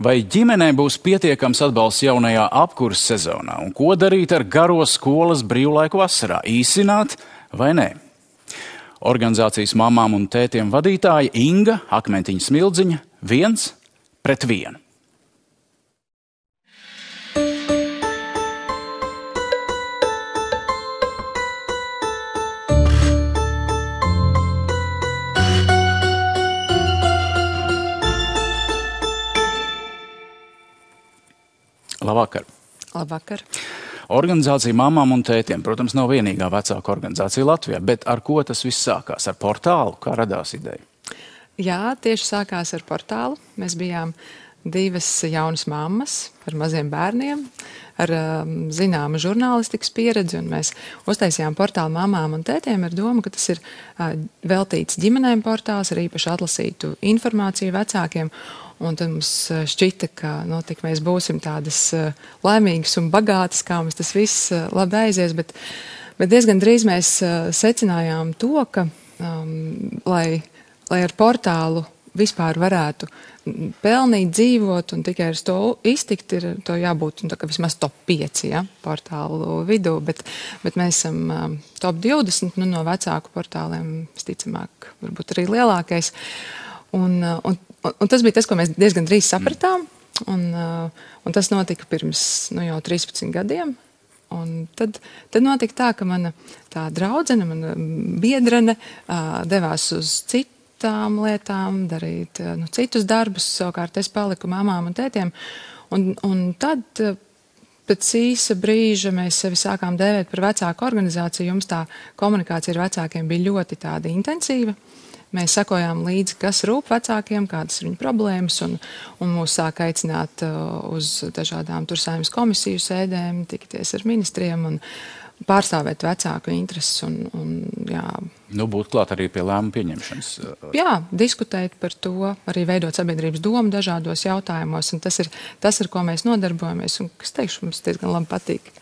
Vai ģimenei būs pietiekams atbalsts jaunajā apkurses sezonā? Un ko darīt ar garo skolas brīvlaiku vasarā? Īsināt vai nē? Organizācijas mamām un tētiem vadītāja Inga Akmentiņa Smildziņa 1-1. Labvakar. Labvakar. Organizācija mamām un tētiem, protams, nav vienīgā vecāka organizācija Latvijā, bet ar ko tas viss sākās? Ar portālu? Kā radās ideja? Jā, tieši sākās ar portālu. Mēs bijām 2 jaunas mammas ar maziem bērniem, ar zināmu žurnālistikas pieredzi, un mēs uztaisījām portālu mamām un tētiem ar domu, ka tas ir veltīts ģimenēm portāls, ar īpaši atlasītu informāciju vecākiem. Un tad mums šķita, ka tik mēs būsim tādas laimīgas un bagātas, kā mums tas viss labi aizies, bet diezgan drīz mēs secinājām to, ka, lai ar portālu vispār varētu pelnīt, dzīvot un tikai ar to iztikt, ir to jābūt vismaz top 5 portālu vidū, bet mēs esam top 20 no vecāku portāliem, visticamāk, varbūt arī lielākais. Un tas bija tas, ko mēs diezgan drīz sapratām, un tas notika pirms jau 13 gadiem. Un tad notika tā, ka mana tā draudzene, mana biedrene devās uz citām lietām, darīt citus darbus, savukārt es paliku mamām un tētiem. Un tad pēc īsa brīža mēs sevi sākām dēvēt par vecāku organizāciju. Jums tā komunikācija ar vecākiem bija ļoti tāda intensīva. Mēs sakojām līdzi, kas rūp vecākiem, kādas ir viņu problēmas, un mūs sāk aicināt uz dažādām tur Saeimas komisiju sēdēm, tikties ar ministriem un pārstāvēt vecāku intereses. Jā. Būt klāt arī pie lēmumu pieņemšanas. Jā, diskutēt par to, arī veidot sabiedrības domu dažādos jautājumos, un tas ir, ar ko mēs nodarbojamies, un, kas teikšu, mums diezgan labi patīk.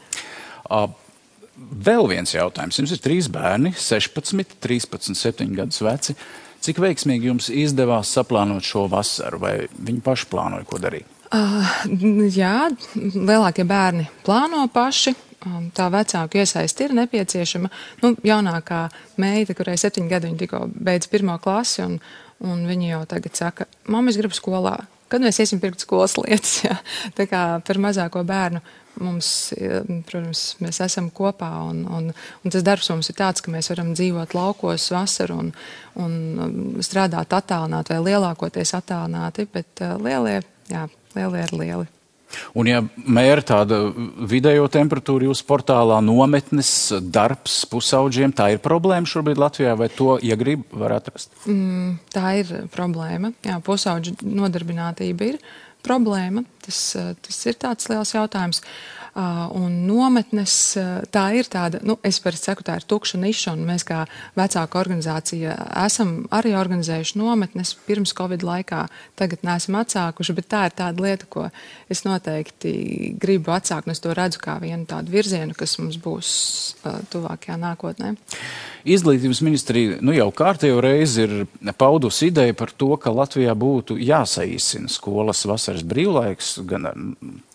Vēl viens jautājums. Jums ir 3 bērni, 16, 13, 7 gadus veci. Cik veiksmīgi jums izdevās saplānot šo vasaru, vai viņi paši plānoja, ko darīt? Jā, lielākie bērni plāno paši. Tā vecāku iesaisti ir nepieciešama. Jaunākā meita, kurai 7 gadi, viņa tikko beidz 1. klasi, un viņa jau tagad saka, mamma, es gribu skolā. Kad mēs iesim pirkt skolas lietas? Jā. Tā kā par mazāko bērnu mums, protams, mēs esam kopā, un tas darbs mums ir tāds, ka mēs varam dzīvot laukos vasaru un strādāt attālināti vai lielākoties attālināti, bet lielie ir lieli. Un ja mēra tāda vidējo temperatūru jūsu portālā nometnes darbs pusaudžiem, tā ir problēma šobrīd Latvijā, vai to, ja grib, var atrast? Tā ir problēma. Jā, pusaudžu nodarbinātība ir problēma. Tas ir tāds liels jautājums. Un nometnes, tā ir tāda, es parasti saku, tā ir tukša niša, un mēs kā vecāka organizācija esam arī organizējuši nometnes pirms Covid laikā, tagad neesam atsākuši, bet tā ir tāda lieta, ko es noteikti gribu atsākt, un es to redzu kā vienu tādu virzienu, kas mums būs tuvākajā nākotnē. Izglītības ministrija jau kārtējo reizi ir paudusi ideju par to, ka Latvijā būtu jāsaīsina skolas vasaras brīvlaiks, gan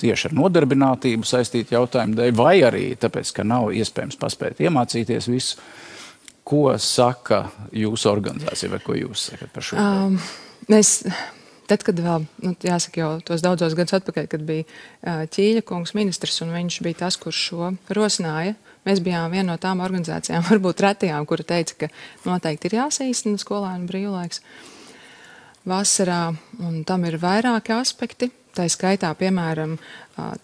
tieši ar nodarbinātību saistītu jautājumu dēļ, vai arī tāpēc, ka nav iespējams paspēt iemācīties visu. Ko saka jūsu organizācija, vai ko jūs sakat par šo? Tad, kad vēl, jāsaka jau tos daudzos gadus atpakaļ, kad bija Ķīļa kungs ministrs, un viņš bija tas, kurš šo rosināja, mēs bijām viena no tām organizācijām, varbūt retajām, kura teica, ka noteikti ir jāsaīsina skolēnu brīvlaiks vasarā, un tam ir vairāki aspekti. Tā skaitā, piemēram,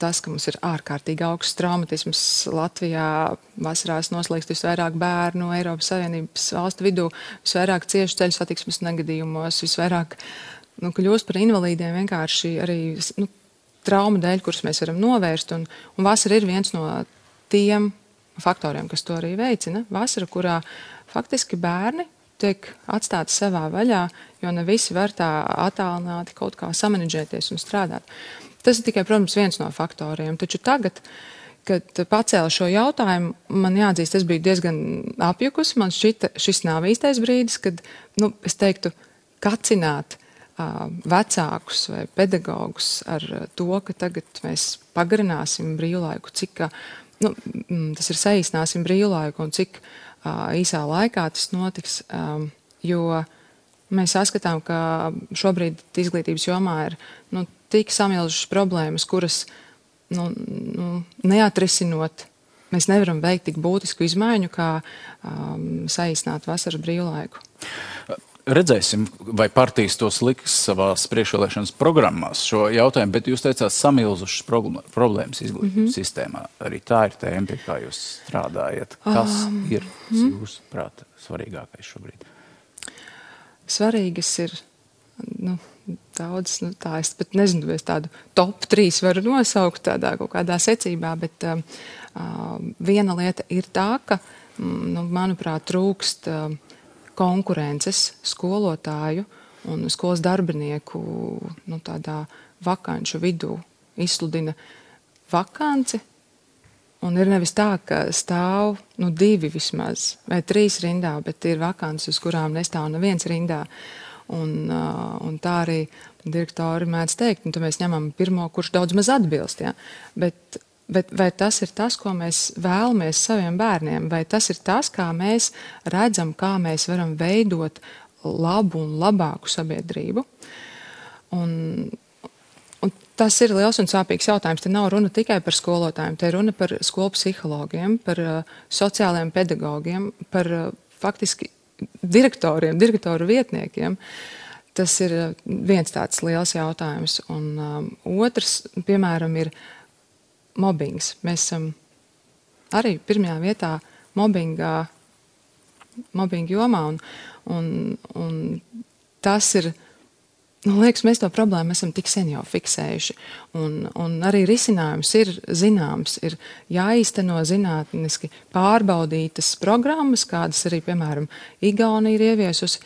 tas, ka mums ir ārkārtīgi augsts traumatisms Latvijā, vasarās noslīkst visvairāk bērnu Eiropas Savienības valstu vidū, visvairāk cieši ceļu satiksmes negadījumos, visvairāk kļūst par invalīdiem vienkārši arī traumu dēļ, kuras mēs varam novērst, un vasara ir viens no tiem faktoriem, kas to arī veicina. Vasara, kurā faktiski bērni tiek atstāti savā vaļā, jo ne visi var tā attālināti kaut kā samanedžēties un strādāt. Tas ir tikai, protams, viens no faktoriem, taču tagad, kad pacēla šo jautājumu, man jāatzīst, es biju diezgan apjukusi, man šķita, šis nav īstais brīdis, kad, es teiktu, kacināt vecākus vai pedagogus ar to, ka tagad mēs pagarināsim brīvlaiku, cik tas ir saīsināsim brīvlaiku un cik īsā laikā tas notiks, jo mēs saskatām, ka šobrīd izglītības jomā ir tik samilzušas problēmas, kuras neatrisinot, mēs nevaram veikt tik būtisku izmaiņu, kā saīsināt vasaras brīvlaiku. Redzēsim, vai partijas tos liks savās priekšvēlēšanas programmās šo jautājumu, bet jūs teicāt samilzušas problēmas izglītības sistēmā. Arī tā ir tēma, pie kā jūs strādājat. Kas ir, jūsuprāt, svarīgākais šobrīd? Svarīgas ir, daudz, tā es pat nezinu, es tādu top 3 varu nosaukt tādā kaut kādā secībā, bet viena lieta ir tā, ka, manuprāt, trūkst konkurences skolotāju un skolas darbinieku tādā vakanču vidū izsludina vakanci. Un ir nevis tā, ka stāv 2 vismaz vai 3 rindā, bet ir vakances, uz kurām nestāv neviens rindā. Un tā arī direktori mēdz teikt, tad mēs ņemam pirmo, kurš daudz maz atbilst. Ja? Bet vai tas ir tas, ko mēs vēlamies saviem bērniem, vai tas ir tas, kā mēs redzam, kā mēs varam veidot labu un labāku sabiedrību? Un tas ir liels un sāpīgs jautājums. Te nav runa tikai par skolotājiem, te ir runa par skolu psihologiem, par sociālajiem pedagogiem, par faktiski direktoru vietniekiem. Tas ir viens tāds liels jautājums. Un otrs, piemēram, ir mobbings. Mēs esam arī pirmajā vietā mobbinga jomā, un tas ir, liekas, mēs to problēmu esam tik sen jau fiksējuši, un arī risinājums ir zināms, ir jāīsteno zinātniski pārbaudītas programmas, kādas arī, piemēram, Igaunija ir ieviesusi,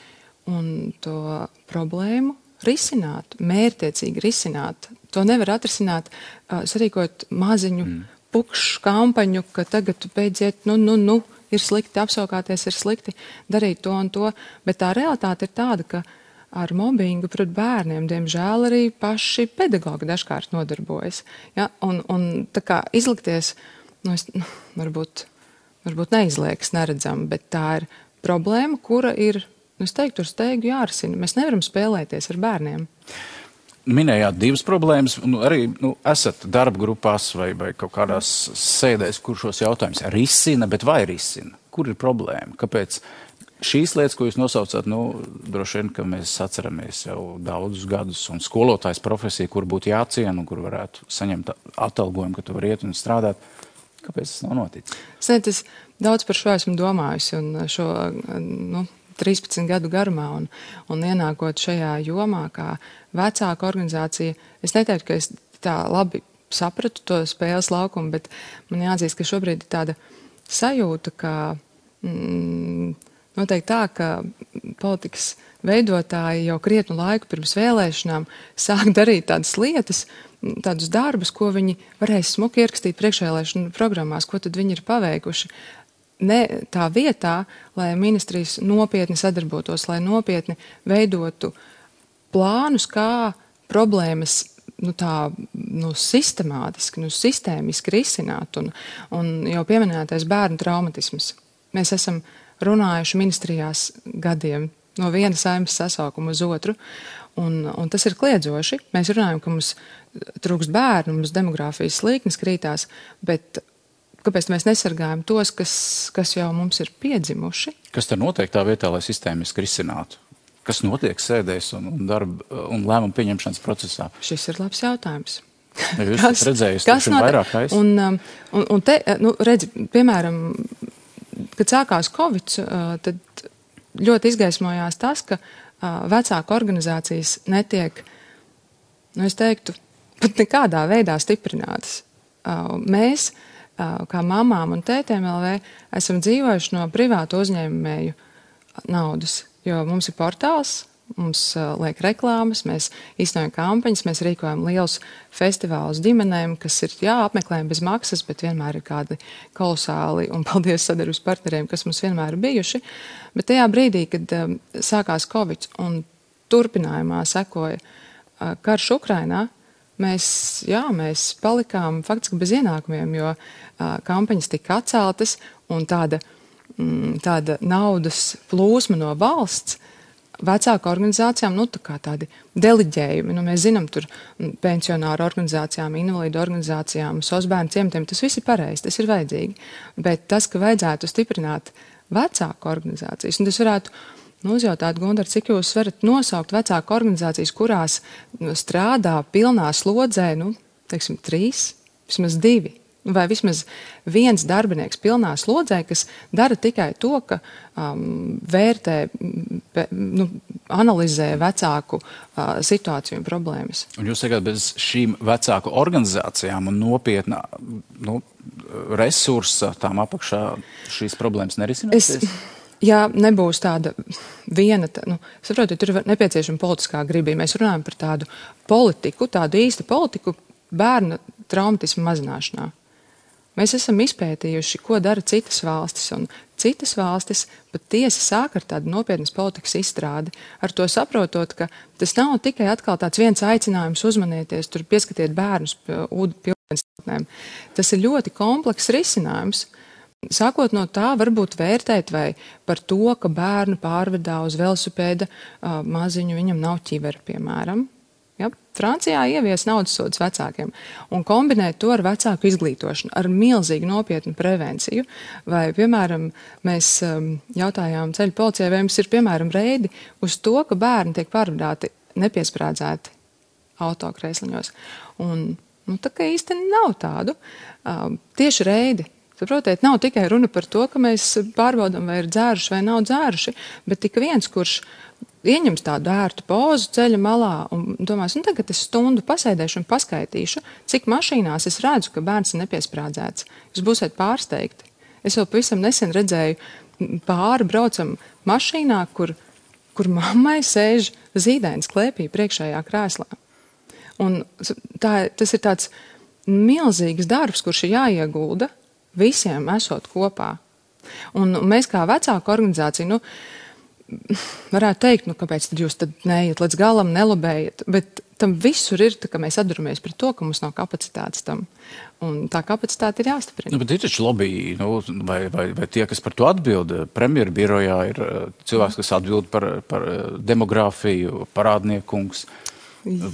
un to problēmu risināt, mērķtiecīgi risināt. To nevar atrisināt, sarīkot maziņu pukšu kampaņu, ka tagad tu beidziet, ir slikti, apsaukāties ir slikti, darīt to un to, bet tā realitāte ir tāda, ka ar mobbingu pret bērniem, diemžēl, arī paši pedagogi dažkārt nodarbojas. Ja? Un tā kā izlikties, varbūt neizliekas neredzam, bet tā ir problēma, kura ir, es teiktu, ar steigu jārisina. Mēs nevaram spēlēties ar bērniem. Minējāt 2 problēmas, un arī esat darba grupās vai kaut kādās sēdēs, kur šos jautājumus risina, bet vai risina? Kur ir problēma? Kāpēc šīs lietas, ko jūs nosaucat, droši vien, ka mēs atceramies jau daudzus gadus, un skolotājs profesija, kur būtu jāciena un kur varētu saņemt atalgojumu, ka tu vari iet un strādāt. Kāpēc tas nav noticis? Es daudz par šo esmu domājusi, un šo 13 gadu garumā, un ienākot šajā jomā, kā vecāka organizācija, es neteiktu, ka es tā labi sapratu to spēles laukumu, bet man jāatzīst, ka šobrīd ir tāda sajūta, ka noteikti tā, ka politikas veidotāji jau krietnu laiku pirms vēlēšanām sāk darīt tādas lietas, tādus darbus, ko viņi varēs smuki ierakstīt priekšvēlēšanu programmās, ko tad viņi ir paveikuši. Ne tā vietā, lai ministrijas nopietni sadarbotos, lai nopietni veidotu plānus, kā problēmas sistemātiski, sistēmiski risināt, un jau pieminētais bērnu traumatisms. Mēs esam runājuši ministrijās gadiem no viena saeimas sasaukuma uz otru, un tas ir kliedzoši. Mēs runājam, ka mums trūkst bērnu, mums demogrāfijas slīknes krītās, bet kāpēc mēs nesargājam tos, kas jau mums ir piedzimuši? Kas tad notiek tā vietā, lai sistēmiski risinātu? Kas notiek sēdēs un darba un lēmumu pieņemšanas procesā? Šis ir labs jautājums. Ja jūs esat redzējuši vairāk aiz? Un te, redzi, piemēram, kad sākās Covid, tad ļoti izgaismojās tas, ka vecāku organizācijas netiek, es teiktu, pat nekādā veidā stiprinātas. Mēs, kā mamām un tētēm LV, esam dzīvojuši no privātu uzņēmēju naudas, jo mums ir portāls, mums liek reklāmas, mēs īstenojam kampaņas, mēs rīkojam lielus festivālus ģimenēm, kas ir, apmeklējumi bez maksas, bet vienmēr ir kādi kolosāli, un paldies sadarbības partneriem, kas mums vienmēr ir bijuši. Bet tajā brīdī, kad sākās Covid, un turpinājumā sekoja karš Ukrainā, mēs palikām faktiski bez ienākumiem, jo kampaņas tika atceltas un tāda naudas plūsma no valsts vecāku organizācijām, tā kā tādi deliģējumi. Mēs zinām, tur pensionāru organizācijām, invalīdu organizācijām, sosbērnu ciematiem, tas viss ir pareizi, tas ir vajadzīgi. Bet tas, ka vajadzētu stiprināt vecāku organizācijas, un tas varētu uzjautāt, Gundar, cik jūs varat nosaukt vecāku organizācijas, kurās strādā pilnā slodzē, 3, vismaz 2. Vai vismaz viens darbinieks pilnā slodzē, kas dara tikai to, ka vērtē, analizē vecāku situāciju un problēmas. Un jūs sakāt, bez šīm vecāku organizācijām un nopietnā resursa tām apakšā šīs problēmas nerisināsies? Ja nebūs tāda viena, saprotiet, tur ir nepieciešama politiskā griba. Mēs runājam par tādu politiku, tādu īstu politiku bērnu traumatismu mazināšanā. Mēs esam izpētījuši, ko dara citas valstis, un citas valstis patiesi sāk ar tādu nopietnas politikas izstrādi, ar to saprotot, ka tas nav tikai atkal tāds viens aicinājums uzmanieties, tur pieskatiet bērnus pie ūdenstātnēm. Tas ir ļoti komplekss risinājums. Sākot no tā, varbūt vērtēt vai par to, ka bērnu pārvedā uz velosipēda maziņu, viņam nav ķivera, piemēram. Ja? Francijā ievies naudas sodus vecākiem un kombinēt to ar vecāku izglītošanu, ar milzīgu nopietnu prevenciju. Vai, piemēram, mēs jautājām ceļu policijai, vai mums ir, piemēram, reidi uz to, ka bērni tiek pārvadāti nepiesprādzēti autokrēsliņos. Un, tā kā īsti nav tādu. Tieši reidi. Saprotiet, nav tikai runa par to, ka mēs pārbaudam, vai ir dzēruši vai nav dzēruši, bet tik viens, kurš ieņems tādu ērtu pozu ceļa malā un domās, tagad es stundu pasēdēšu un paskaitīšu, cik mašīnās es redzu, ka bērns ir nepiesprādzēts. Jūs būsiet pārsteigti. Es vēl pavisam nesen redzēju pāri braucam mašīnā, kur mammai sēž zīdainis klēpī priekšējā krēslā. Un tas ir tāds milzīgs darbs, kurš ir jāiegulda visiem esot kopā. Un mēs kā vecāku organizācija, varētu teikt, kāpēc tad jūs neiet līdz galam, nelobējat, bet tam visur ir, ka mēs atduramies pret to, ka mums nav kapacitātes tam. Un tā kapacitāte ir jāstiprina. Bet ir taču lobby, vai tie, kas par to atbild, premjeru birojā ir cilvēks, kas atbild par demogrāfiju, parādniekungs.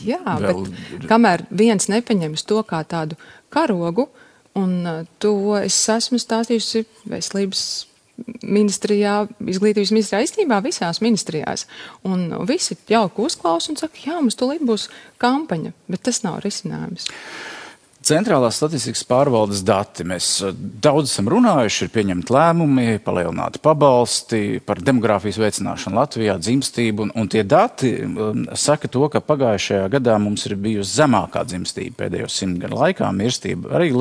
Jā, bet kamēr viens nepaņems to kā tādu karogu, un to es esmu stāstījusi veselības ministrijā, izglītības ministrijā, īstenībā visās ministrijās. Un visi jauki uzklausa un saka, jā, mums tūlīt būs kampaņa, bet tas nav risinājums. Centrālās statistikas pārvaldes dati. Mēs daudz esam runājuši, ir pieņemti lēmumi, palielināti pabalsti par demogrāfijas veicināšanu Latvijā, dzimstību, un tie dati saka to, ka pagājušajā gadā mums ir bijusi zemākā dzimstība pēdējo 100 gadu laikā, mirstība arī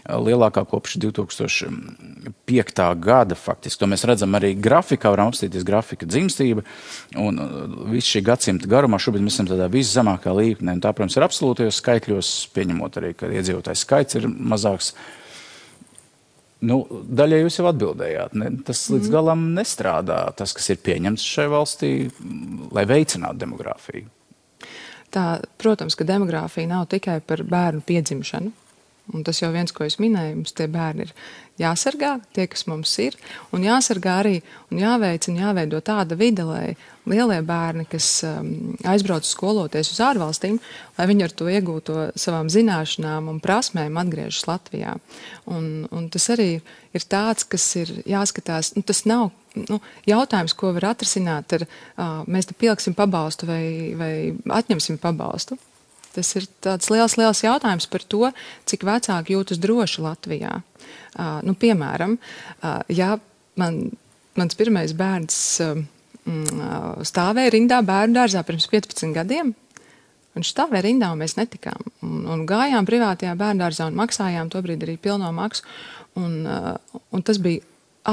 lielākā kopš 2005. gada faktiski. To mēs redzam arī grafikā, varam apstīties grafika dzimstība, un visu šī gadsimta garumā šobrīd mēs esam tādā viszemākā līmenī. Tā, protams, ir absolūtajos skaitļos, pieņemot arī, ka iedzīvotājs skaits ir mazāks. Daļai jūs jau atbildējāt. Tas līdz galam nestrādā, tas, kas ir pieņemts šai valstī, lai veicinātu demogrāfiju. Tā, protams, ka demogrāfija nav tikai par bērnu piedzimšanu. Un tas jau viens, ko es minēju, mums tie bērni ir jāsargā, tie, kas mums ir, un jāsargā arī un jāveicina, jāveido tāda vide, lai lielie bērni, kas aizbrauc skoloties uz ārvalstīm, lai viņi ar to iegūto savām zināšanām un prasmēm atgriežas Latvijā. Un tas arī ir tāds, kas ir jāskatās, tas nav jautājums, ko var atrisināt ar, mēs te pieliksim pabalstu vai atņemsim pabalstu. Tas ir tāds liels jautājums par to, cik vecāki jūtas droši Latvijā. Piemēram, ja mans pirmais bērns stāvēja rindā bērnu dārzā pirms 15 gadiem, viņš stāvēja rindā un mēs netikām. Un gājām privātajā bērnu dārzā un maksājām tobrīd arī pilno maksu. Un tas bija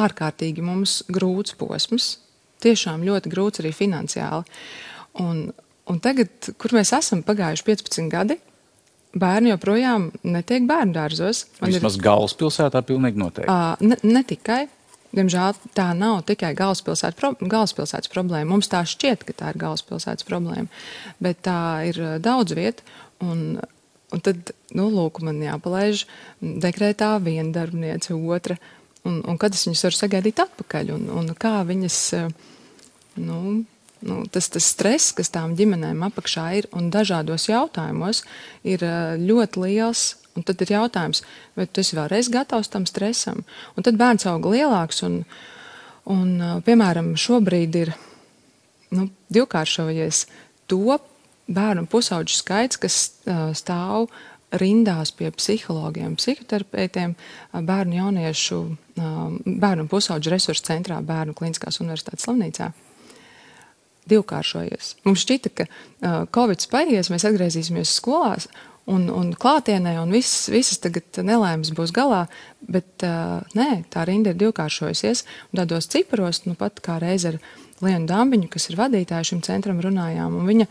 ārkārtīgi mums grūts posms, tiešām ļoti grūts arī finansiāli. Un tagad, kur mēs esam pagājuši 15 gadi, bērni joprojām netiek bērnu dārzos. Vismaz galvaspilsētā pilnīgi noteikti. Ne tikai. diemžēl tā nav tikai galvaspilsētas problēma. Mums tā šķiet, ka tā ir galvaspilsētas problēma, bet tā ir daudz viet. Un tad, lūk, man jāpalaiž dekrētā viena darbniece, otra, un kad es viņas varu sagaidīt atpakaļ, un kā viņas, tas stress, kas tām ģimenēm apakšā ir, un dažādos jautājumos ir ļoti liels. Un tad ir jautājums, vai tu esi vēlreiz gatavs tam stresam? Un tad bērns aug lielāks, un piemēram, šobrīd ir divkāršojies to bērnu pusauģu skaits, kas stāv rindās pie psihologiem, psihoterapeitiem, bērnu pusauģu resursu centrā, Bērnu Kliniskās universitātes slimnīcā. Divkāršojies. Mums šķita, ka Covid paies, mēs atgriezīsimies skolās, un klātienē, un visas tagad nelēmas būs galā, bet nē, tā rinda ir divkāršojusies, un tādos ciparos, pat kā reiz ar Lienu Dambiņu, kas ir vadītāja šim centram, runājām, un viņa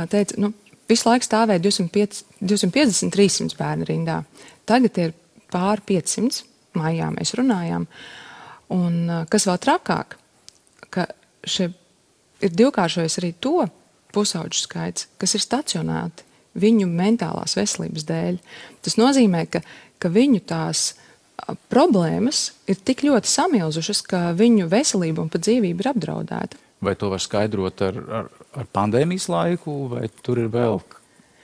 teica, visu laiku stāvēja 250-300 bērnu rindā. Tagad ir pār 500, maijā mēs runājām, un kas vēl trakāk, ka ir divkāršojies arī to pusauģu skaits, kas ir stacionēti viņu mentālās veselības dēļ. Tas nozīmē, ka viņu tās problēmas ir tik ļoti samilzušas, ka viņu veselība un pat dzīvība ir apdraudēta. Vai to var skaidrot ar pandēmijas laiku, vai tur ir vēl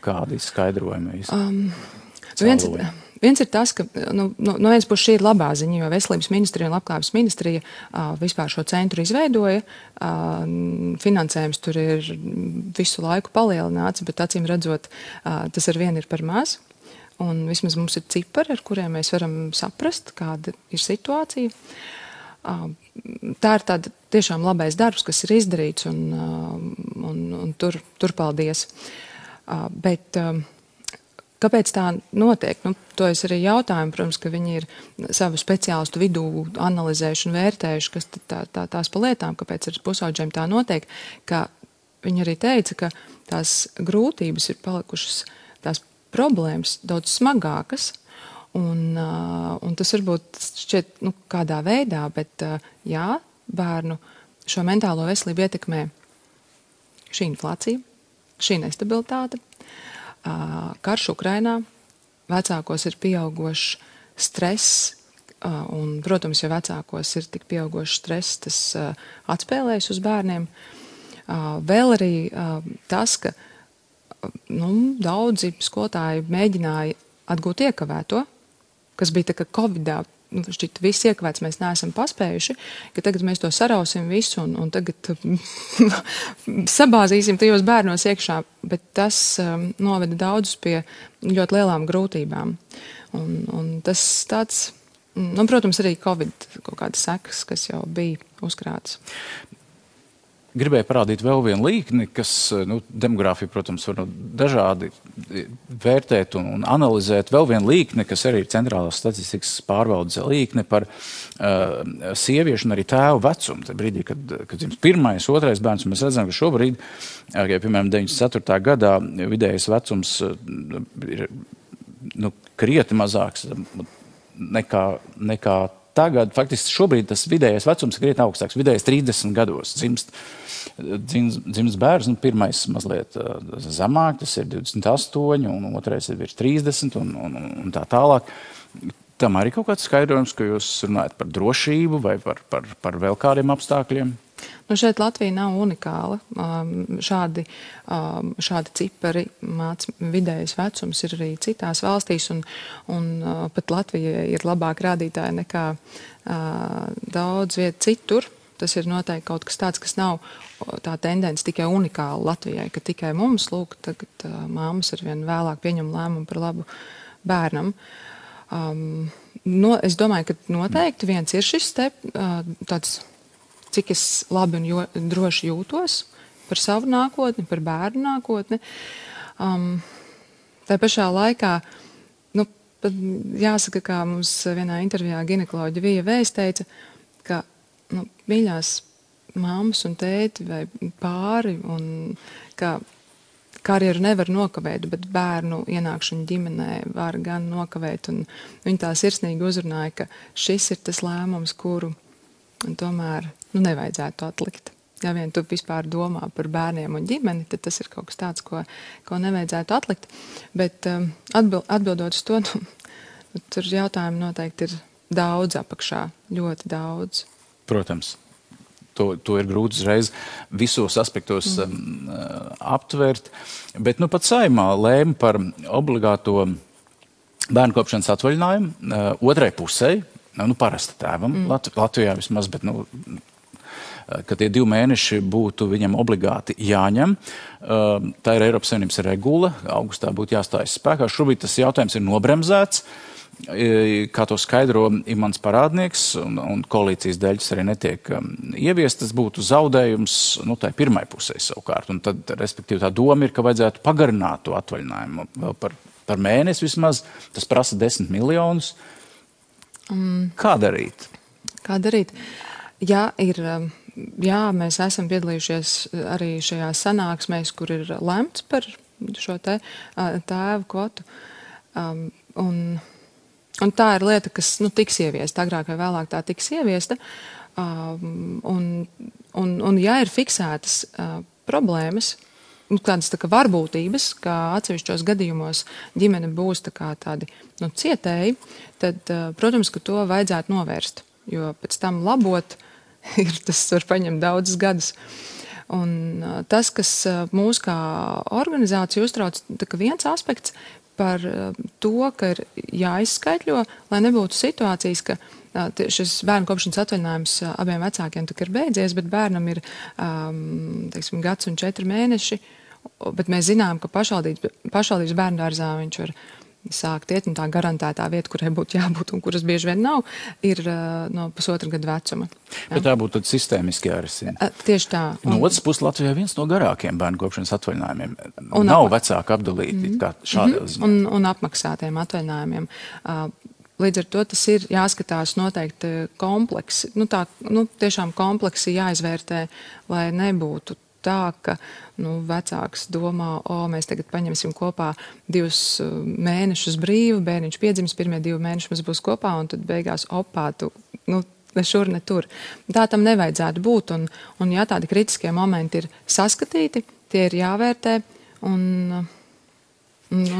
kādi skaidrojumi? Viens ir tas, ka no vienas puses šī ir labā ziņa, jo Veselības ministrija un Labklājības ministrija vispār šo centru izveidoja. Finansējums tur ir visu laiku palielināts, bet acīm redzot, tas ar vienu ir par maz. Un vismaz mums ir cipari, ar kuriem mēs varam saprast, kāda ir situācija. Tā ir tāda tiešām labais darbs, kas ir izdarīts, un tur paldies. Bet kāpēc tā notiek? To es arī jautāju, protams, ka viņi ir savu speciālistu vidū analizējuši un vērtējuši, kas tās pa lietām, kāpēc ar pusauģiem tā notiek, ka viņi arī teica, ka tās grūtības ir palikušas, tās problēmas daudz smagākas, un tas varbūt šķiet, kādā veidā, bet jā, bērnu šo mentālo veselību ietekmē šī inflācija, šī nestabilitāte, karš Ukrainā, vecākos ir pieaugošs stress, un, protams, ja vecākos ir tik pieaugošs stress, tas atspēlējas uz bērniem. Vēl arī tas, ka daudzi skolotāji mēģināja atgūt iekavēto, kas bija tā kā Covidā, šķiet, viss iekavēts mēs neesam paspējuši, ka tagad mēs to sarausim visu un tagad sabāzīsim tajos bērnos iekšā, bet tas noveda daudzus pie ļoti lielām grūtībām. Un tas tāds, protams, arī Covid kaut kādas sekas, kas jau bija uzkrāts. Gribēju parādīt vēl vienu līkni, kas demogrāfiju, protams, var dažādi vērtēt un analizēt. Vēl vienu līkni, kas arī ir centrālās statistikas pārvaldes līkne par sieviešu un arī tēvu vecumu. Tad brīdī, kad dzimst pirmais, otrais bērns, mēs redzam, ka šobrīd, piemēram, 94. gadā vidējais vecums ir krietni mazāks nekā tagad. Faktiski šobrīd tas vidējais vecums ir krietni augstāks. Vidējais 30 gados dzimst bērns, pirmais mazliet zemāk, tas ir 28, un otrais ir virs 30 un tā tālāk. Tam arī kaut kāds skaidrojums, ka jūs runājat par drošību vai par vēl kādiem apstākļiem? Šeit Latvija nav unikāla. Šādi cipari vidējais vecums ir arī citās valstīs, un pat Latvija ir labāk rādītāja nekā daudz viet citur. Tas ir noteikti kaut kas tāds, kas nav tā tendence tikai unikāla Latvijai, ka tikai mums, lūk, tagad māmas arvien vēlāk pieņem lēmumu par labu bērnam. Es domāju, ka noteikti viens ir šis tāds, cik es labi un droši jūtos par savu nākotni, par bērnu nākotni. Tā pašā laikā, jāsaka, kā mums vienā intervijā ginekoloģa Vija Vējs teica, ka mīļās mammas un tēti vai pāri, un ka karjeru nevar nokavēt, bet bērnu ienākšanu ģimenē var gan nokavēt. Un viņi tā sirsnīgi uzrunāja, ka šis ir tas lēmums, kuru Un tomēr nevajadzētu atlikt. Ja vien tu vispār domā par bērniem un ģimeni, tad tas ir kaut kas tāds, ko nevajadzētu atlikt. Bet atbildot uz to, tur jautājumi noteikti ir daudz apakšā, ļoti daudz. Protams. To ir grūti uzreiz visos aspektos aptvert. Bet pat Saeimā lēma par obligāto bērnu kopšanas atvaļinājumu otrai pusē, parasta tēvam, Latvijā vismaz, bet ka tie 2 mēneši būtu viņam obligāti jāņem. Tā ir Eiropas Savienības regula, augustā būtu jāstājas spēkā. Šobrīd tas jautājums ir nobremzēts. Kā to skaidro mans parādnieks, un koalīcijas dēļ tas arī netiek ieviest, tas būtu zaudējums tai pirmai pusē savukārt. Un tad, respektīvi, tā doma ir, ka vajadzētu pagarināt to atvaļinājumu vēl par mēnesi vismaz. Tas prasa 10 miljonus. Kā darīt? Kā darīt? Jā, mēs esam piedalījušies arī šajās sanāksmēs, kur ir lemts par šo tēvu kvotu. Un tā ir lieta, kas tiks ieviesta, agrāk vai vēlāk tā tiks ieviesta. Un ja ir fiksētas problēmas, tādas tā kā varbūtības, ka atsevišķos gadījumos ģimene būs tādi cietēji, tad, protams, ka to vajadzētu novērst, jo pēc tam labot tas var paņemt daudzus gadus. Un tas, kas mūs kā organizācija uztrauc, viens aspekts par to, ka ir jāizskaitļo, lai nebūtu situācijas, ka šis bērnu kopšanas atvaļinājums abiem vecākiem ir beidzies, bet bērnam ir, teiksim, 1 gads un 4 mēneši, bet mēs zinām, ka pašvaldības bērndārzā viņš var sākt iet, un tā garantētā vieta, kurai būtu jābūt un kuras bieži vien nav, ir no 1,5 gada vecuma. Ja? Bet tā būtu tad sistēmiski jārisina. Tieši tā. No otras puses Latvijā viens no garākiem bērnu kopšanas atvaļinājumiem. Nav vecāki apdalīti kā šādā ziņā. Un apmaksātiem atvaļinājumiem. Līdz ar to tas ir jāskatās noteikti kompleksi. Tiešām kompleksi jāizvērtē, lai nebūtu tā, ka vecāks domā, mēs tagad paņemsim kopā 2 mēnešus brīvu, bērniņš piedzims, pirmie 2 mēneši mums būs kopā, un tad beigās tu ne šur, ne tur. Tā tam nevajadzētu būt, un ja tādi kritiskie momenti ir saskatīti, tie ir jāvērtē, un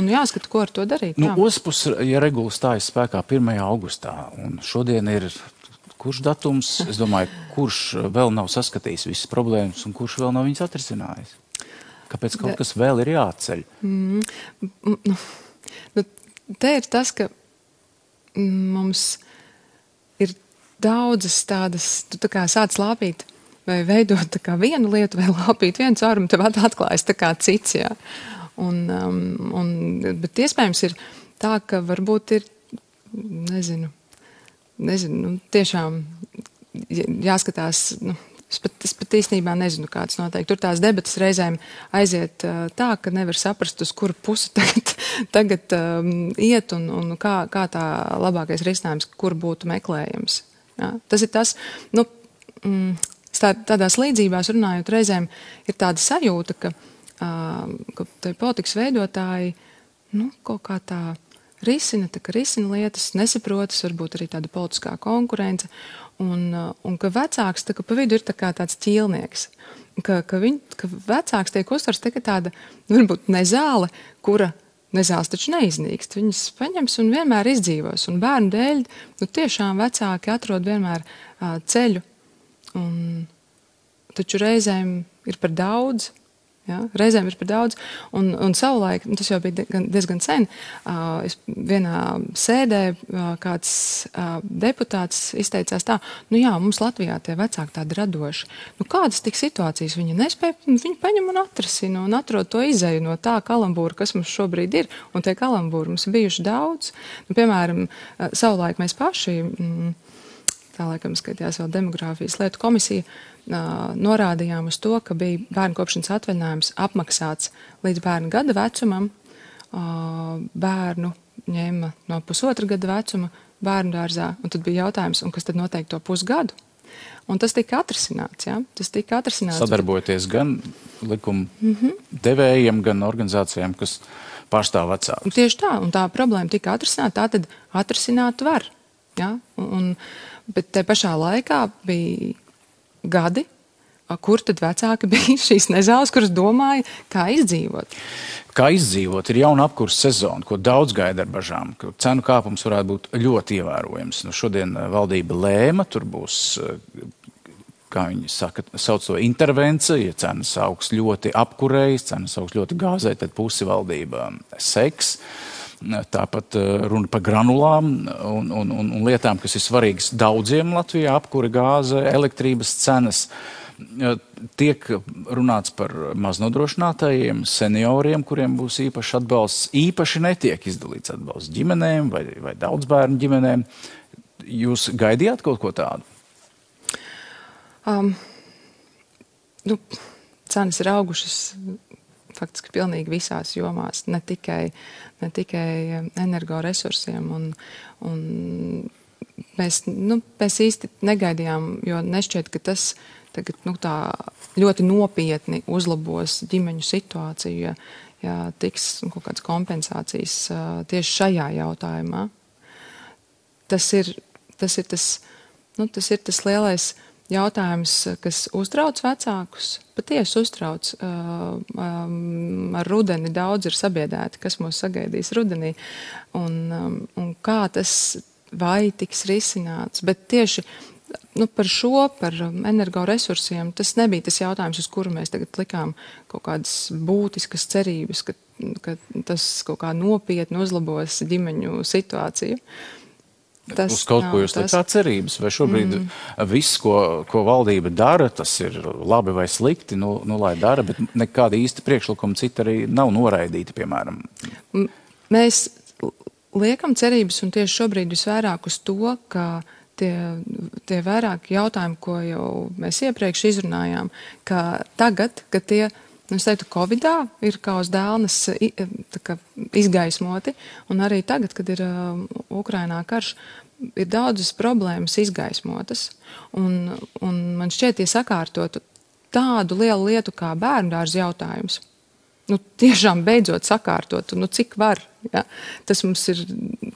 jāskata, ko ar to darīt. Otrs puses, ja regula stājas spēkā 1. augustā, un šodien ir kurš datums, es domāju, kurš vēl nav saskatījis visas problēmas un kurš vēl nav viņas atrisinājis? Kāpēc kaut kas vēl ir jāceļ? Te ir tas, ka mums ir daudzas tādas, tu tā kā sāc lāpīt vai veidot tā kā vienu lietu vai lāpīt vienu caurumu, tev atklājas tā kā cits, jā. Bet iespējams ir tā, ka varbūt ir, nezinu, tiešām jāskatās, es pat īstenībā nezinu, kāds noteikti. Tur tās debatas reizēm aiziet tā, ka nevar saprast, uz kuru pusi tagad iet un kā tā labākais risinājums, kur būtu meklējams. Ja? Tas ir tas, tādās līdzībās runājot reizēm ir tāda sajūta, ka te politikas veidotāji, kaut kā tā risina lietas, nesaprotas, varbūt arī tāda politiskā konkurence, un ka vecāks pa vidu ir tāds ķīlnieks, ka vecāks tiek uztverts tāda, varbūt nezāle, kura nezāles taču neiznīkst, viņas paņems un vienmēr izdzīvos, un bērnu dēļ, tiešām vecāki atrod vienmēr ceļu, taču reizēm ir par daudz. Ja, reizēm ir par daudz, un savulaik, tas jau bija diezgan sen, vienā sēdē kāds deputāts izteicās tā, mums Latvijā tie vecāki tādi radoši. Kādas tik situācijas viņi nespēja, viņi paņem un atrasina un atrod to izeju no tā kalambūra, kas mums šobrīd ir, un tie kalambūri mums ir bijuši daudz. Piemēram, savulaik mēs paši, tā laikam skatījās vēl demogrāfijas lietu komisija, norādījām uz to, ka bija bērnu kopšanas atvaļinājums apmaksāts līdz bērnu gada vecumam, bērnu ņēma no 1,5 gada vecuma bērnu dārzā, un tad bija jautājums, un kas tad noteikti to pusgadu? Un tas tika atrisināts, ja? Tas tika atrisināts. Sadarbojoties gan likuma devējiem, gan organizācijām, kas pārstāv vecākus. Tieši tā, un tā problēma tika atrisināta, tā tad atrisināt var. Ja? Bet te pašā laikā bija gadi, kur tad vecāki bija šīs nezāles, kuras domāja, kā izdzīvot. Kā izdzīvot, ir jauna apkurses sezona, ko daudz gaida ar bažām, ka cenu kāpums varētu būt ļoti ievērojams. Nu, šodien valdība lēma, tur būs, kā viņi sauc to intervenciju, ja cenas augs ļoti apkurējas, cenas augs ļoti gāzē, tad pusi valdība seks. Tāpat runa par granulām un lietām, kas ir svarīgas daudziem Latvijā, apkure, gāze, elektrības cenas. Tiek runāts par maznodrošinātajiem, senioriem, kuriem būs īpašs atbalsts. Īpaši netiek izdalīts atbalsts ģimenēm vai daudzbērnu ģimenēm. Jūs gaidījāt kaut ko tādu? Cenas ir augušas faktiski pilnīgi visās jomās, ne tikai energoresursiem. Mēs īsti negaidījām, jo nešķiet, ka tas tagad tā ļoti nopietni uzlabos ģimeņu situāciju, ja tiks kaut kādas kompensācijas tieši šajā jautājumā. Tas ir tas lielais jautājums, kas uztrauc vecākus, patiesi uztrauc. Ar rudeni daudz ir sabiedēti, kas mūs sagaidīs rudenī, un kā tas vai tiks risināts. Bet tieši par energoresursiem tas nebija tas jautājums, uz kuru mēs tagad likām kaut kādas būtiskas cerības, ka tas kaut kā nopietni uzlabos ģimeņu situāciju. Uz kaut ko jūs likāt cerības? Vai šobrīd viss, ko valdība dara, tas ir labi vai slikti, lai dara, bet nekāda īsta priekšlikuma cita arī nav noraidīta, piemēram? Mēs liekam cerības, un tieši šobrīd visvairāk uz to, ka tie vairāki jautājumi, ko jau mēs iepriekš izrunājām, ka tagad, kad tie, es teiktu, Covidā ir kā uz dēlnes izgaismoti, un arī tagad, kad ir Ukrainā karš, ir daudzas problēmas izgaismotas, un man šķiet, ja sakārtotu tādu lielu lietu kā bērndārza jautājums, tiešām beidzot sakārtot, cik var. Ja? Tas mums ir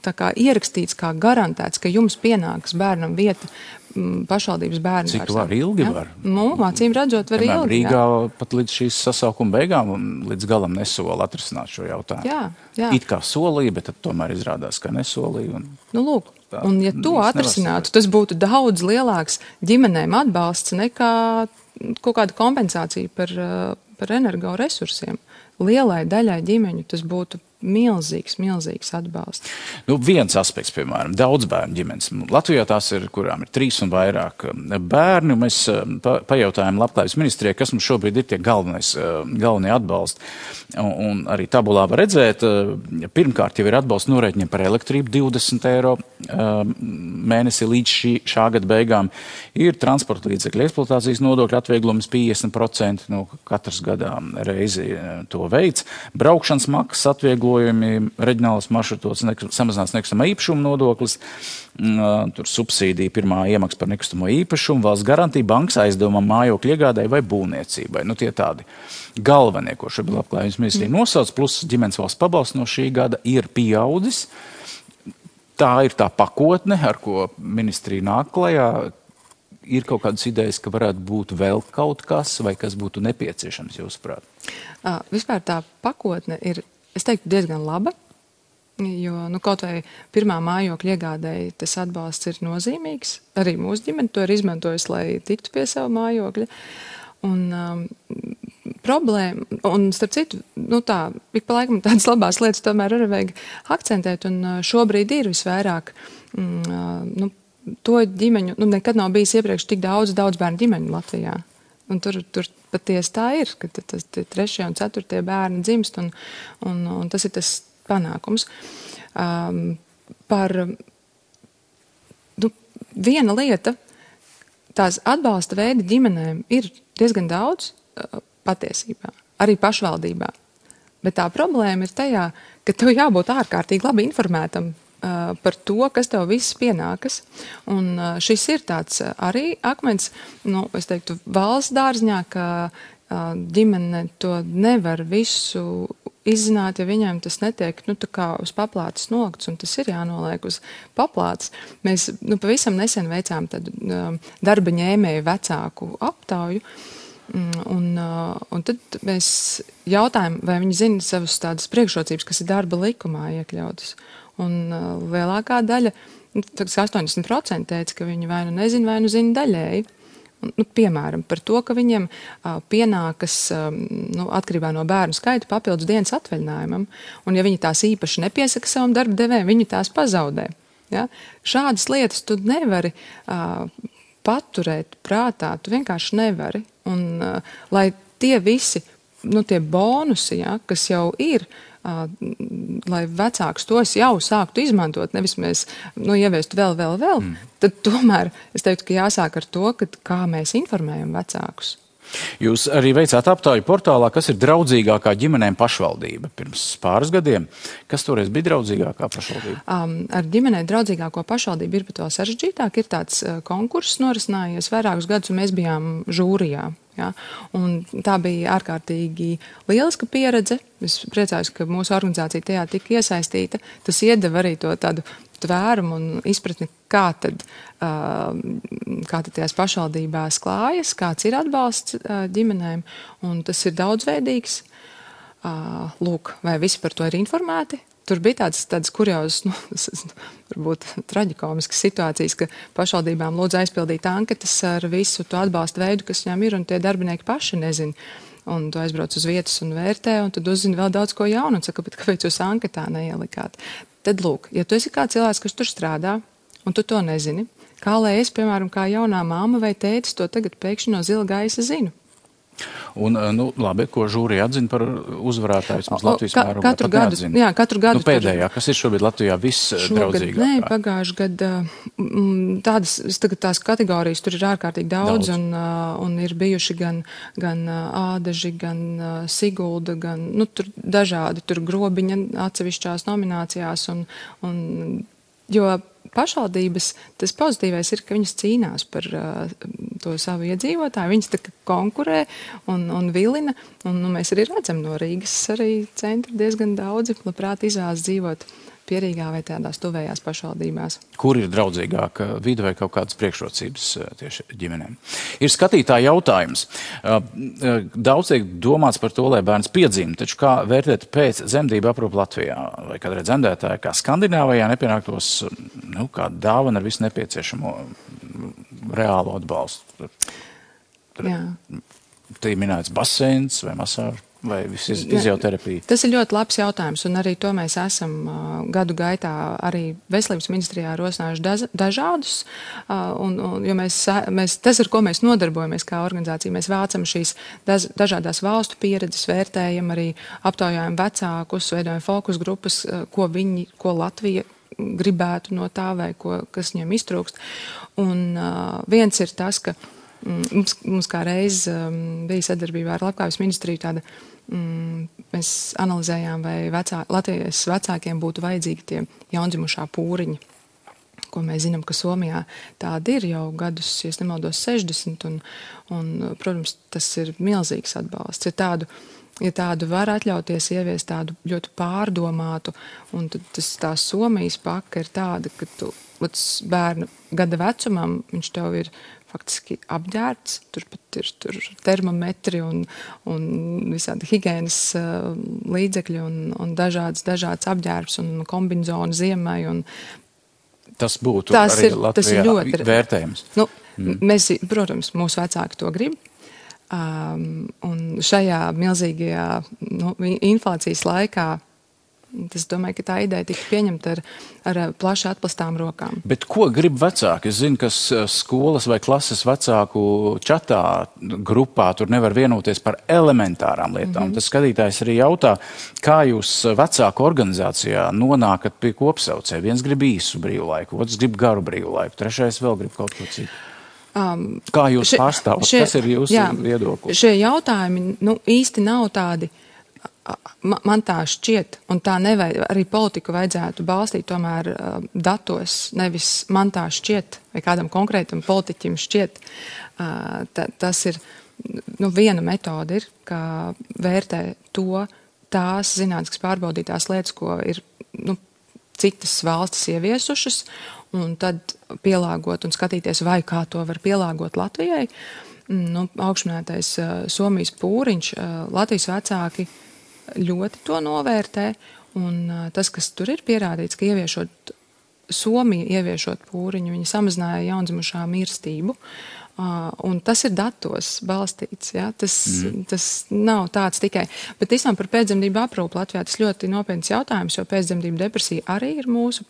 tā kā ierakstīts, kā garantēts, ka jums pienāks bērnam vieta pašvaldības bērndārzā. Cik var, ilgi var? Acīm redzot, var ilgi. Rīgā pat līdz šīs sasaukuma beigām un līdz galam nesola atrisināt šo jautājumu. Jā. It kā solīja, bet tad tomēr izrādās, ka nesolīja. Lūk, un ja to atrisinātu, tas būtu daudz lielāks ģimenēm atbalsts nekā kaut kāda kompensācija par energoresursiem. Lielai daļai ģimeņu tas būtu milzīgs atbalsts. Viens aspekts, piemēram, daudzbērnu ģimenes. Latvijā tās ir, kurām ir 3 un vairāk bērni. Mēs pajautājām Labklājības ministrijai, kas mums šobrīd ir tie galvenie atbalsti. Un arī tabulā var redzēt, pirmkārt jau ir atbalsts norēķiniem par elektrību 20 eiro mēnesi līdz šā gada beigām. Ir transporta līdzekļu eksploatācijas nodokļu atvieglojums 50%, katrs gadā reizi to veids. Braukšanas maksas atvieglojumi, reģionālas maršrutos, samazināts nekustamā īpašuma nodoklis, tur subsīdija pirmā iemaksa par nekustamo īpašumu, valsts garantija, bankas aizdevumam, mājokļu iegādai vai būvniecībai. Tie tādi galvenie, ko šobrīd Labklājības ministrija nosauc, plus ģimenes valsts pabalsts no šī gada ir pieaudzis. Tā ir tā pakotne, ar ko ministrija nāk klajā. Ir kaut kādas idejas, ka varētu būt vēl kaut kas, vai kas būtu nepieciešams, jūsuprāt? Vispār tā pakotne ir, es teiktu, diezgan laba, jo kaut vai pirmā mājokļa iegādēji tas atbalsts ir nozīmīgs. Arī mūsu ģimene to ir izmantojusi, lai tiktu pie sava mājokļa. Un problēma, un starp citu, ik pa laikam tādas labās lietas tomēr arī vajag akcentēt, un šobrīd ir visvairāk to ģimeņu, nekad nav bijis iepriekš tik daudz bērnu ģimeņu Latvijā. Un tur patiesi tā ir, ka tas 3. un 4. bērni dzimst, un tas ir tas panākums. Viena lieta, tās atbalsta veidi ģimenēm ir diezgan daudz patiesībā, arī pašvaldībā. Bet tā problēma ir tajā, ka tev jābūt ārkārtīgi labi informētam par to, kas tev viss pienākas. Un šis ir tāds arī akmens, es teiktu, valsts dārzņā, ka ģimene to nevar visu izzināt, ja viņiem tas netiek, tā kā uz paplātes nokts, un tas ir jānoliek uz paplātes. Mēs, pavisam nesen veicām tādu darba ņēmēju vecāku aptauju, un tad mēs jautājam, vai viņi zina savas tādas priekšrocības, kas ir darba likumā iekļautas. Un lielākā daļa, 80% teica, ka viņi vai nu nezina, vai nu zina daļēji. Piemēram, par to, ka viņiem pienākas atkarībā no bērnu skaita papildus dienas atvaļinājumam, un ja viņi tās īpaši nepiesaka savam darba devējam, viņi tās pazaudē. Ja? Šādas lietas tu nevari paturēt prātā, tu vienkārši nevari. Un lai tie visi, tie bonusi, ja, kas jau ir, lai vecāks tos jau sāktu izmantot, nevis mēs ieviestu vēl, tad tomēr es teiktu, ka jāsāk ar to, kā mēs informējam vecākus. Jūs arī veicāt aptauju portālā, kas ir draudzīgākā ģimenēm pašvaldība pirms pāris gadiem. Kas toreiz bija draudzīgākā pašvaldība? Ar ģimenei draudzīgāko pašvaldību ir pat vēl sarežģītāk. Ir tāds konkurss norisinājies vairākus gadus, un mēs bijām žūrijā. Ja? Un tā bija ārkārtīgi lieliska pieredze. Es priecājos, ka mūsu organizācija tajā tika iesaistīta. Tas iedeva arī to tādu tvērumu un izpratni, kā tad tajās pašvaldībās klājas, kāds ir atbalsts ģimenēm, un tas ir daudzveidīgs. Lūk, vai visi par to ir informēti? Tur bija tādas kuriozas, varbūt traģikomiskas situācijas, ka pašvaldībām lūdzu aizpildīt anketas ar visu to atbalstu veidu, kas viņām ir, un tie darbinieki paši nezin. Un tu aizbrauc uz vietas un vērtē, un tad uzzini vēl daudz ko jaunu, un saka, bet kāpēc jūs anketā neielikāt? Tad lūk, ja tu esi kā cilvēks, kas tur strādā, un tu to nezini, kā lai es, piemēram, kā jaunā māma vai tētis, to tagad pēkšņi no zila gaisa zinu. Un, labi, ko žūrija atzina par uzvarētāju, mums Latvijas mērogā katru gadu, jā, katru gadu. Pēdējā, kas ir šobrīd Latvijā visdraudzīgākā? Nē, pagājuši gadu tās kategorijas tur ir ārkārtīgi daudz. Un ir bijuši gan Ādaži, gan Sigulda, gan, tur dažādi, tur Grobiņa atsevišķās nominācijās, jo pašvaldības, tas pozitīvais ir, ka viņas cīnās par to savu iedzīvotāju, viņas tā konkurē un vilina, un mēs arī redzam no Rīgas arī centra diezgan daudzi, labprāt izvēlas dzīvot Pierīgā vai tādās tuvējās pašvaldībās. Kur ir draudzīgāka vide vai kaut kādas priekšrocības tieši ģimenēm? Ir skatītāja jautājums. Daudz tiek domāts par to, lai bērns piedzimst, taču kā vērtēt pēc dzemdību aprūpi Latvijā? Vai kādreiz dzemdētāji kā Skandināvijā nepienāktos kā dāvana ar visu nepieciešamo reālo atbalstu? Jā. Te ir minēts baseins vai masāža? Vai fizioterapija? Tas ir ļoti labs jautājums, un arī to mēs esam gadu gaitā arī Veselības ministrijā rosinājuši dažādus, jo tas, ar ko mēs nodarbojamies kā organizācija, mēs vācam šīs dažādās valstu pieredzes, vērtējam arī aptaujājam vecākus, veidojam fokus grupas, ko Latvija gribētu no tā vai kas viņiem iztrūkst. Un viens ir tas, ka mums kā reiz bija sadarbībā ar Labklājības ministriju tāda, mēs analizējām, vai Latvijas vecākiem būtu vajadzīgi tie jaundzimušā pūriņi, ko mēs zinām, ka Somijā tāda ir jau gadus, ja nemaldos 60, un, protams, tas ir milzīgs atbalsts. Ja tādu var atļauties ieviest tādu ļoti pārdomātu, un tad tā Somijas paka ir tāda, ka tu bērna gada vecumam, viņš tev ir faktiski apģērbts, tur pat ir termometri un visādi higienas līdzekļi un dažāds apģērbs un kombinzoni ziemai. Tas būtu arī Latvijā vērtējums. Mēs, protams, mūsu vecāki to grib. Un šajā milzīgajā inflācijas laikā, es domāju, ka tā ideja tika pieņemta ar plaši atplastām rokām. Bet ko grib vecāki? Es zinu, ka skolas vai klases vecāku čatā grupā tur nevar vienoties par elementārām lietām. Tas skatītājs arī jautā, kā jūs vecāku organizācijā nonākat pie kopsaucēja. Viens grib īsu brīvlaiku, otrs grib garu brīvlaiku, trešais vēl grib kaut ko citu. Kā jūs pārstāvat? Kas ir jūsu viedoklis? Šie jautājumi īsti nav tādi, man tā šķiet, un tā nevajag, arī politiku vajadzētu balstīt tomēr datos, nevis man tā šķiet, vai kādam konkrētam politiķim šķiet. Tas ir, viena metode ir, kā vērtē to, tās zinātniskas pārbaudītās lietas, ko ir citas valstis ieviesušas, un tad pielāgot un skatīties, vai kā to var pielāgot Latvijai. Augšminētais Somijas pūriņš, Latvijas vecāki ļoti to novērtē, un tas, kas tur ir pierādīts, ka Somija ieviešot pūriņu, viņi samazināja jaundzimušā mirstību, un tas ir datos balstīts, ja? Tas nav tāds tikai. Bet īstenībā par pēcdzemdību aprūpi Latvijā tas ļoti nopietns jautājums, jo pēcdzemdību depresija arī ir mūsu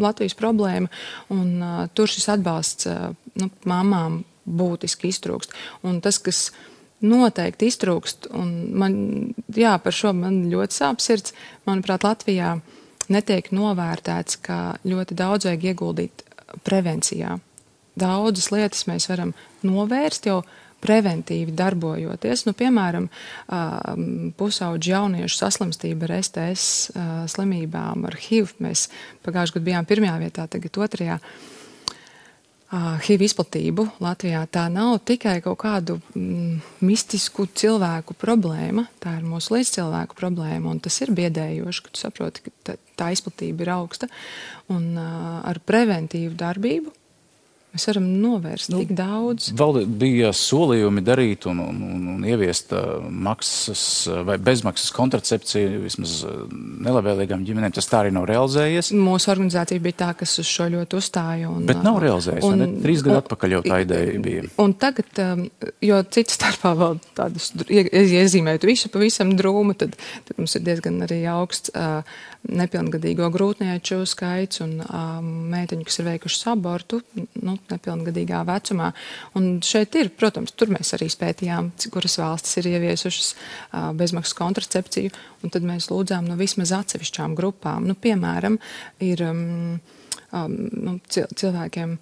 Latvijas problēma, un tur šis atbalsts mamām būtiski iztrūkst. Un tas, kas noteikti iztrūkst, un par šo man ļoti sāp sirds, manuprāt, Latvijā netiek novērtēts, ka ļoti daudz vajag ieguldīt prevencijā. Daudzas lietas mēs varam novērst jau preventīvi darbojoties. Piemēram, pusauģu jauniešu saslimstība ar STS slimībām, ar HIV. Mēs pagājušajā gadā bijām 1. vietā, tagad 2. HIV izplatību Latvijā. Tā nav tikai kaut kādu mistisku cilvēku problēma, tā ir mūsu līdzcilvēku problēma, un tas ir biedējoši, ka tu saproti, ka tā izplatība ir augsta, un ar preventīvu darbību mēs varam novērst tik daudz. Bija solījumi darīt un ieviest maksas vai bezmaksas kontracepciju vismaz nelabvēlīgām ģimenēm. Tas tā arī nav realizējies. Mūsu organizācija bija tā, kas uz šo ļoti uzstāja. Bet nav realizējies, ne? 3 gadu atpakaļ jau tā ideja bija. Un tagad, jo cits starpā vēl tādus iezīmējot visu pavisam drūmu, tad mums ir diezgan arī augsts nepilngadīgo grūtnieču skaits un meiteņu, kas ir veikušas abortu, nepilngadīgā vecumā. Un šeit ir, protams, tur mēs arī spētījām, kuras valstis ir ieviesušas bezmaksas kontracepciju, un tad mēs lūdzām vismaz atsevišķām grupām. Piemēram, ir cilvēkiem,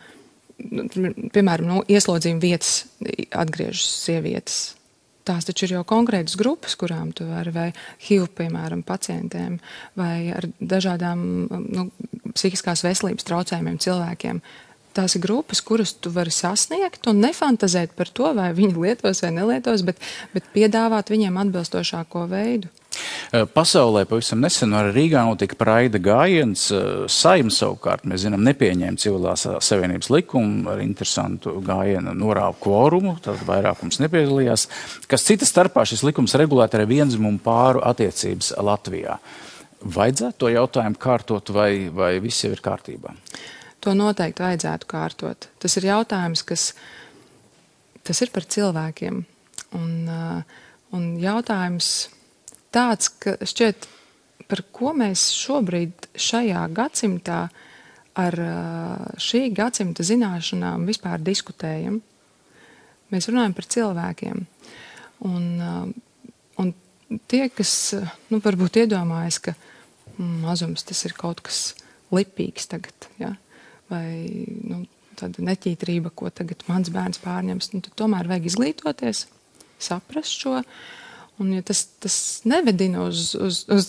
piemēram, ieslodzījuma vietas atgriežas sievietes. Tās taču ir jau konkrētas grupas, kurām tu vari, vai HIV, piemēram, pacientiem, vai ar dažādām psihiskās veselības traucējumiem cilvēkiem. Tās ir grupas, kuras tu vari sasniegt un nefantazēt par to, vai viņi lietos vai nelietos, bet piedāvāt viņiem atbilstošāko veidu. Pasaulē pavisam nesen arī Rīgā notika praida gājiens. Saeima savukārt, mēs zinām, nepieņēma civilās savienības likumu ar interesantu gājienu norāvu kvorumu, tad vairākums nepiedalījās, kas cita starpā šis likums regulēt arī vienzimumu pāru attiecības Latvijā. Vajadzētu to jautājumu kārtot vai viss jau ir kārtībā? To noteikti vajadzētu kārtot. Tas ir jautājums, tas ir par cilvēkiem. Un jautājums tāds, ka šķiet, par ko mēs šobrīd šajā gadsimtā ar šī gadsimta zināšanām vispār diskutējam. Mēs runājam par cilvēkiem. Un tie, kas varbūt iedomājas, ka mazums tas ir kaut kas lipīgs tagad, ja? Vai tāda neķītrība, ko tagad mans bērns pārņems, tad tomēr vajag izglītoties, saprast šo. Un ja tas nevedina uz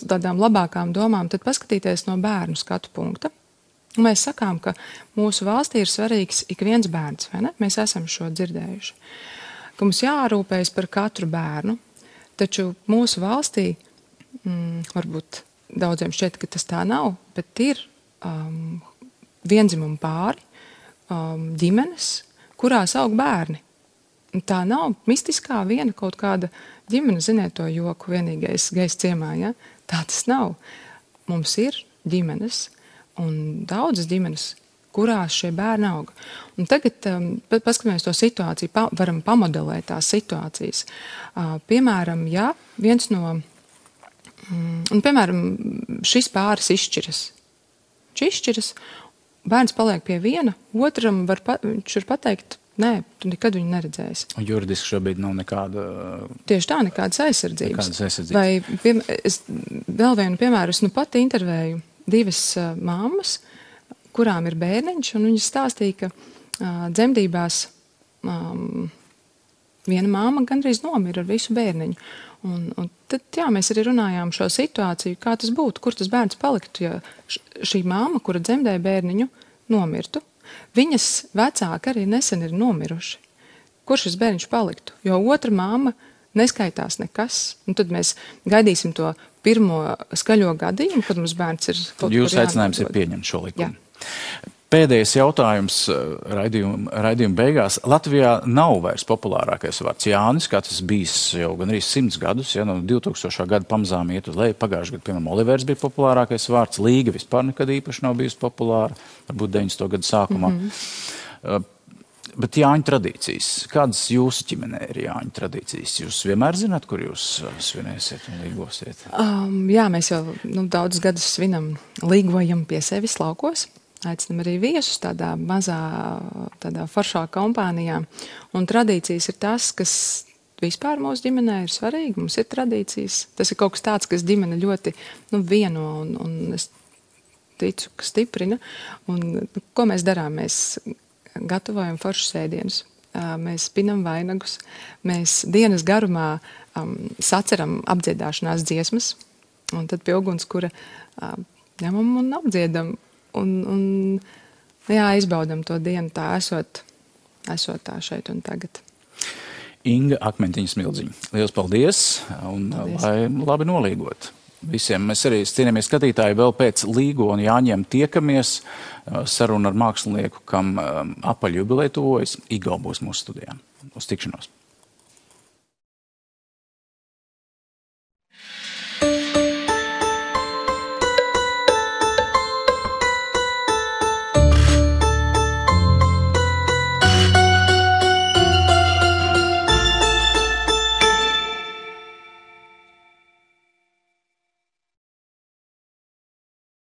tādām labākām domām, tad paskatīties no bērnu skatu punkta. Un mēs sakām, ka mūsu valstī ir svarīgs ik viens bērns, vai ne? Mēs esam šo dzirdējuši. Ka mums jārūpējas par katru bērnu, taču mūsu valstī, varbūt daudziem šķiet, ka tas tā nav, bet ir vienzimumu pāri, ģimenes, kurās aug bērni. Tā nav mistiskā viena kaut kāda ģimene, ziniet to joku, vienīgais gejs ciemā, ja? Tā tas nav. Mums ir ģimenes un daudzas ģimenes, kurās šie bērni aug. Un tagad, paskatāmies to situāciju, varam pamodelēt tās situācijas. Piemēram, ja viens no, piemēram, šis pāris izšķiras, bērns paliek pie viena, otram viņš var pateikt, nē, tu nekad viņu neredzēsi. Un juridiski šobrīd nav nekāda... Tieši tā, nekādas aizsardzības. Vai vēl vienu piemēru, es pat intervēju 2 mammas, kurām ir bērniņš, un viņas stāstīja, ka dzemdībās viena mamma gandrīz nomira ar visu bērniņu. Un tad, jā, mēs arī runājām šo situāciju, kā tas būtu, kur tas bērns paliktu, ja šī mamma, kura dzemdēja bērniņu, nomirtu. Viņas vecāki arī nesen ir nomiruši. Kur šis bērniņš paliktu? Jo otra mamma neskaitās nekas. Un tad mēs gaidīsim to pirmo skaļo gadījumu, kad mums bērns ir kaut kur jānodod. Jūsu aicinājums ir pieņemt šo likumu. Jā. Pēdējais jautājums raidījuma beigās. Latvijā nav vairs populārākais vārds Jānis, kā tas bijis jau gan arī 100 gadus, ja no 2000. Gada pamazām iet uz leju. Pagājušajā gadā, piemēram, Olivers bija populārākais vārds, Līga vispār nekad īpaši nav bijusi populāra, varbūt 90. gadu sākumā. Bet Jāņu tradīcijas. Kādas jūsu ģimenē ir Jāņu tradīcijas? Jūs vienmēr zināt, kur jūs svinēsiet un līgosiet? Jā, mēs jau daudzus gadus svinam, līgojam pie sevis laukos. Aicinam arī viesus tādā mazā, tādā foršā kompānijā. Un tradīcijas ir tas, kas vispār mūsu ģimenē ir svarīgi. Mums ir tradīcijas. Tas ir kaut kas tāds, kas ģimene ļoti vieno un es ticu, ka stiprina. Un ko mēs darām? Mēs gatavojam foršus ēdienus. Mēs pinam vainagus. Mēs dienas garumā saceram apdziedāšanās dziesmas. Un tad pie ugunskura ņemam un apdziedam. Un izbaudam to dienu tā esot tā šeit un tagad. Inga Akmentiņa Smildziņa. Liels paldies un lai labi nolīgot visiem. Mēs arī, cienījamies skatītāji, vēl pēc Līgo un Jāņiem tiekamies. Saruna ar mākslinieku, kam apaļjubileja tuvojas. Igo būs mūsu studijā. Uz tikšanos.